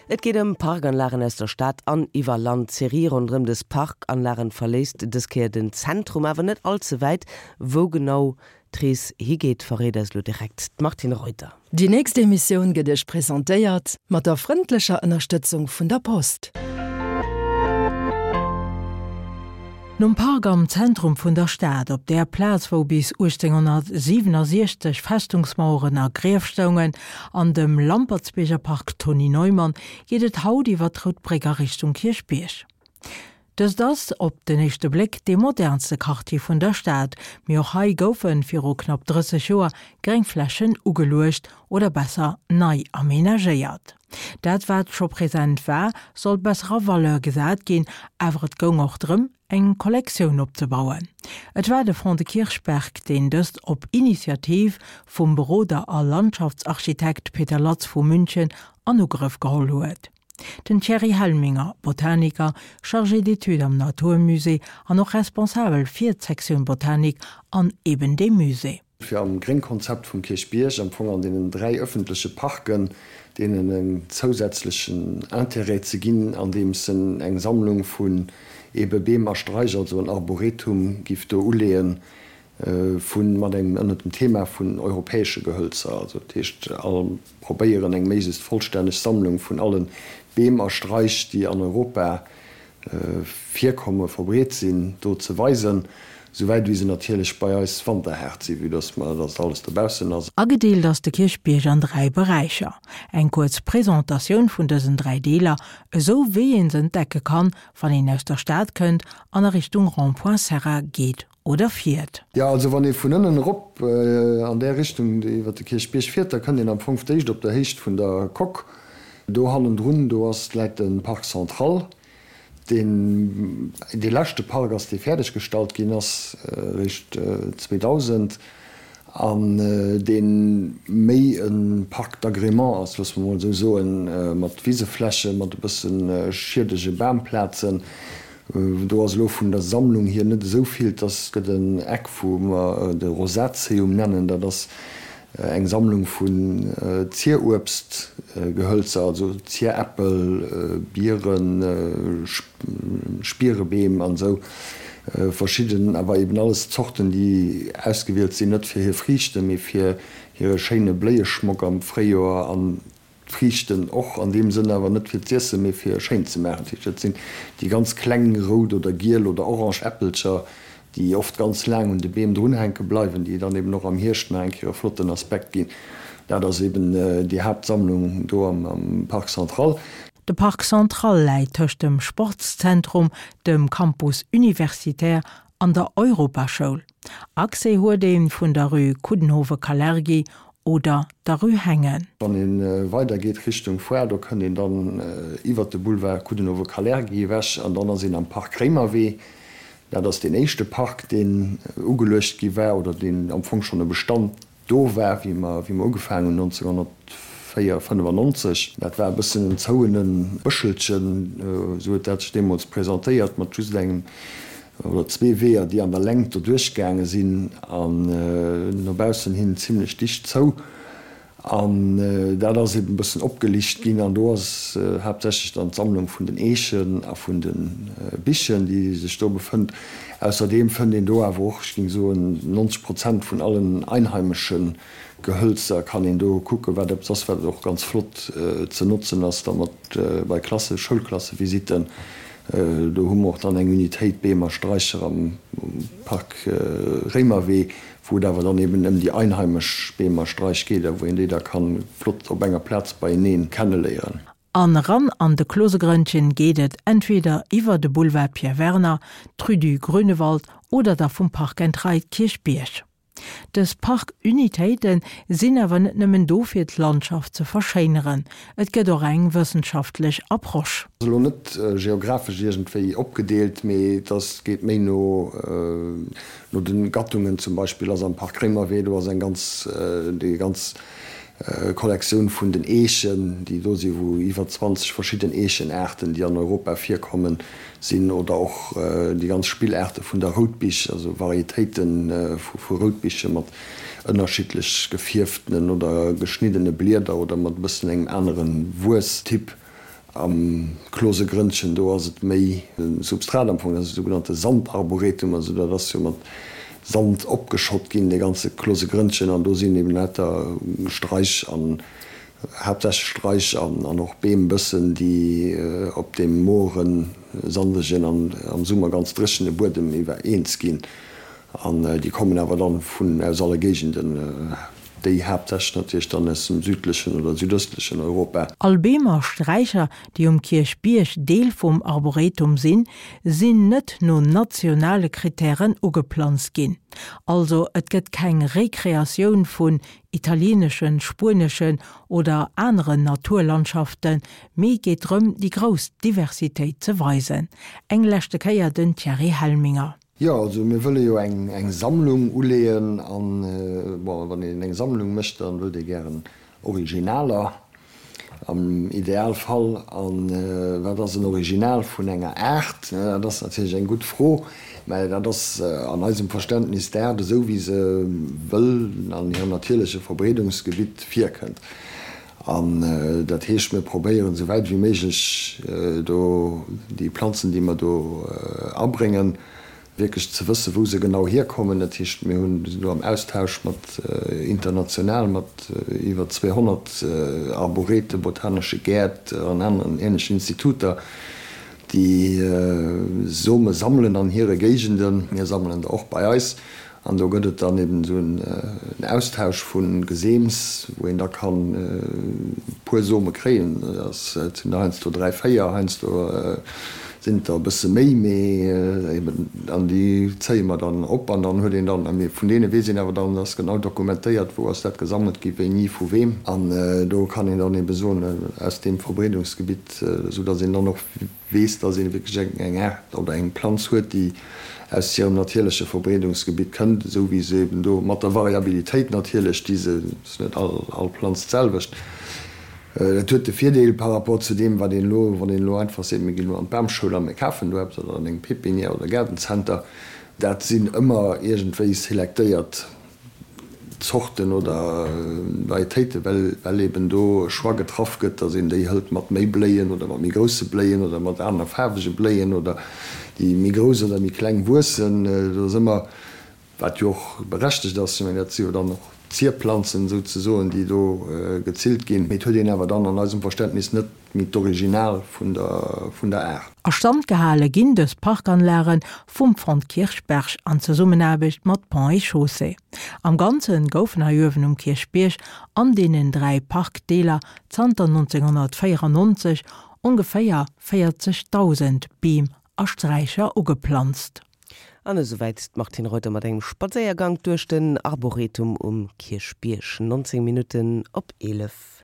Et geet ëm Parkanlagen aus der Stad an iwwer Land. D'Serie ronderëm dës Parkanlagen verléisst dës Kéier den Zentrum, awer net all ze wäit. Wou genau d'Rees higeet, verréit eis elo direkt d'Martine Reuter. Déi nächst Emissioun gëtt Iech presentéiert mat der frëndlecher Ënnerstëtzung vun der Post. Nom Park am Zentrum vun der Stad, op där Plaz wou bis 1867 Festungsmaueren a Grief stoungen, an dem Lampertsbierger Park Tony Neumann, geet et haut iwwer d'Rout Bréck a Richtung Kierchbierg. Dëst ass, op den éischte Bléck, dee modernste Quartier vun der Stad, mee och hei goufe viru knapp 30 Joer gréng Flächen ugeluecht oder besser nei amenagéiert. Dat wat scho present war, sollt besser a Valeur gesat ginn, awer et goung och drëm, eng Kollektioun opzebauen. Et war de Fonds de Kirchberg, deen dëst op Initiativ vum Beroder a Landschaftsarchitekt Peter Latz vu München an Ugrëff geholl huet. Den Thierry Helminger, Botaniker, Chargé d'études am 'natur musée an och responsabel fir d'Sektioun Botanik an eben deem Musée. Fir am Gréngkonzept vum Kierchbierg, am Fong an deenen 3 öffentleche Parken, deenen en zousätzlechen Intérêt ze ginn, andeems en eng Sammlung vun ebe Beem a Straich, also en Arboretum giff do uleeën, vu mat engem ënnert dem Thema vun europäesche Gehölzer, also dat heescht all probéieren eng méiglechst vollstänneg Sammlung vun alle Beem a Straich, déi an Europa virkomme verbreet sinn, do ze weisen, souwäit wéi se natierlech bei eis wanterhaart sinn, vue dass mer, dass alles dobaussen ass. Agedeelt ass de Kierchbierg an 3 Beräicher. Eng kuerz Presentatioun vun dësen 3 Deeler, esou wéi een se entdecke kann, wann een aus der Stad kënnt an a Richtung Rond-point Serra geet oder fiert. Jo, also wann ee vun ënnen erop an där Richtung iwwer de Kierchbierg fiert, da kënnt een am Fong d'éischt op der Héicht vun der Coque do hannendrun, do ass, läit de Parc central, deen dee leschte Park ass, dee fäerdeg gestallt ginn ass eréischt 2000 an dee méi e Parc d'agrément ass, loosse mer emol esou soen, mat Wiseflächen, mat e bësse schiedege Bamplazen. Do ass elo vun der Sammlung hier net esou vill. Et ass, gëtt en Eck, wou mer de Rosaceum nennen. Dat ass eng Sammlung vun Zieruebstgehölzer, also Zieräppel, Bieren, Spierebeem an esou verschidden, awer eben alles Zorten, déi ausgewielt sinn, net fir hir Friichten, mee fir hire schéine Bléieschmock am Fréijoer an D'Friichten och an deem Sënn, awer net fir z'iessen, mee fir schéin ze maachen. Dat heescht, dat sinn déi ganz kleng rout oder giel oder orange Äppelcher, déi oft ganz laang un de Beem drunhänke bleiwen, déi dann eben och am Hierscht nach eng Kéier e flotten Aspekt ginn. Dat ass eben déi Haaptsammlung do am Parc Central. De Parc Central läit tëscht dem Sportszentrum, dem Campus universitaire an der Europaschoul. Accès huet ee vun der Rue Coudenhove-Kalergi oder der Rue Hengen. Wann ee weider geet Richtung Foire, do kënnt een dann iwwert de Boulevard Coudenhove-Kalergi ewech an dann ass een am Park Réimerwee. Dat ass deen éischte Park, deen ugeluecht gi war oder deen am Fong schonn e Bestand Do war, wéi mer, wéi mer ugefaangen hunn 1904, 95, dat war e bëssen en zouene Bëschelchen, esou huet dat sech deemools presentéiert, mat just engem oder zwee Weeër, déi an der Längt doduerch gaange sinn an no baussen hin zimlech dicht zou. An dat ass eben e bëssen opgelicht ginn an do ass haaptsächlech dann d'Sammlung vun den Eechen a vun de Bichen, déi sech do befënnt. Ausserdeem fënnt een do awer och, ech géing soen, 90 Prozent vun allen einheimesche Gehölzer kann een do kucken, wat eppes ass, wat och ganz flott ze notzen ass da mat bei Klasse, Schoulklassevisitten. Do hu mer och dann eng Unitéit Beem a Straicher am Park Réimerwee, wou et awer dann eben ëm déi einheimesch Beem a Straich geet a wou een déi da kann flott op enger Plaz beieneen kenneléieren. An eran an de Klosegrënnchen geet et entweder iwwer de Boulevard Pierre Werner, d'Rue du Grünewald oder da vum Park and Ride Kierchbierg. Dës Park-Unitéite sinn awer net nëmmen do fir d'Landschaft ze verschéineren, et gëtt och eng wëssenschaftlech Approche. Ass elo net geographesch iergendwéi opgedeelt, mee et ass, geet méi no no de Gattungen. Zum Beispill ass am Park Réimerwee, do ass eng ganz, déi ganz Kollektioun vun den Eechen, déi do sinn, wou iwwer 20 verschidden Eechenaarten, déi an Europa virkommen, sinn, oder och déi ganz Spillaarte vun der Routbich, also Varietéite vu Routbiche mat ënnerschiddlech gefierftenen oder geschniddene Blieder oder mat e bëssen engem anere Wuesstyp. Am Klosegrënnchen, do ass et méi e Substrat am Fong, dat ass e sougenannte Sandarboretum, also dat ass jo mat Sand opgeschott ginn, dee ganze Klosegrënnchen, an do sinn eben lauter Straich an haaptsächlech Straich an och Beem bëssen, déi op deem moren, sandegen an am Summer ganz dréchene Buedem iwwer eens ginn. An déi kommen awer dann vun aus alle Géigenden, déi haaptsächlech natierlech dann aus dem südlechen oder südöstlechen Europa. All Beem a Sträicher, déi um Kierchbierg Deel vum Arboretum sinn, sinn net no nationale Krittären ugeplanzt ginn. Also et gëtt keng Rekreatioun vun italieeneschen, spueneschen oder aneren Naturlandschaften, mee geet drëm, déi grouss Diversitéit ze weisen. Eng leschte Kéier den Thierry Helminger. Jo, also mir wëlle jo eng Sammlung uleeën an, bon, wann een eng Sammlung mécht, da wëllt ee gären Originaler am Idealfall. A wat ass en Original vun enger Aart? Dat ass natierlech eng gutt Fro, mä dat ass an eisem Verständnis d'Aart esou wéi se wëll an hirem natierleche Verbreedungsgebitt virkënnt. An dat heescht, mir probéieren esou wäit wéi méiglech do déi Planzen, déi mer do abréngen, wierklech ze wëssen, wou se genau hierkommen. Dat heescht, mir hunn, sinn do am Austausch mat international mat iwwer 200 Arborete, botanesche Gäert an aneren änlechen Instituter, déi Some sammelen an hire Géigenden. Mir sammelen der och bei eis. An do gëtt et dann eben esou en Austausch vu Geseems, wou een da kann e puer Some kréien. Dat sinn der heiansdo 3, 4, heiansdo sinn et der e bësse méi, mee eben, an déi zéie mer dann op an dann huet een dann, mee vun deene weess een awer dann, dat ass genau dokumentéiert, wou ass dat gesammelt gi, wéini, vu weem. An do kann een dann ebe soen, aus deem Verbreedungsgebitt, esou datt een dann och weess, dass ee wierklech eng Aart oder eng Planz huet, déi aus hirem natierleche Verbreedungsgebitt kënnt, esou wéi se eben do, mat der Variabilitéit natierlech, déi se, ass net all Planz d'selwecht. Dat huet de Virdeel par rapport zu deem, wat een elo, wann een elo einfach seet, mir ginn elo an d'Bamschoul a mir kafen do eppes oder an eng Pépinière oder Gaardencenter, dat sinn ëmmer iergendwéi selektéiert Zorten oder Varietéiten, well eben do e Choix getraff gëtt, datt een déi hëlt mat méi Bléien oder mat méi grousse Bléien oder mat aner faarwege Bléien oder déi méi grouss oder méi kleng wuessen. Do ass ëmmer, wat jo och berechtegt ass, ech mengen dat si jo dann och Zierplanzen souzesoen, déi do gezillt ginn, mee et huet een awer dann an eisem Verständnis net Méi d'Original vun der vun der Aart. A Stand gehale ginn dës Parkanlage vum Fonds Kirchberg an Zesummenaarbecht mat Ponts et Chaussées. Am Ganze goufen hei uewen um Kierchbierg an deenen 3 Parkdeeler zanter 1994 ongeféier 40.000 Beem a Sträicher ugeplanzt. An esouwäit d'Martine Reuter mat engem Spadséiergank duerch den Arboretum um Kierchbierg. 19 Minutten op 11.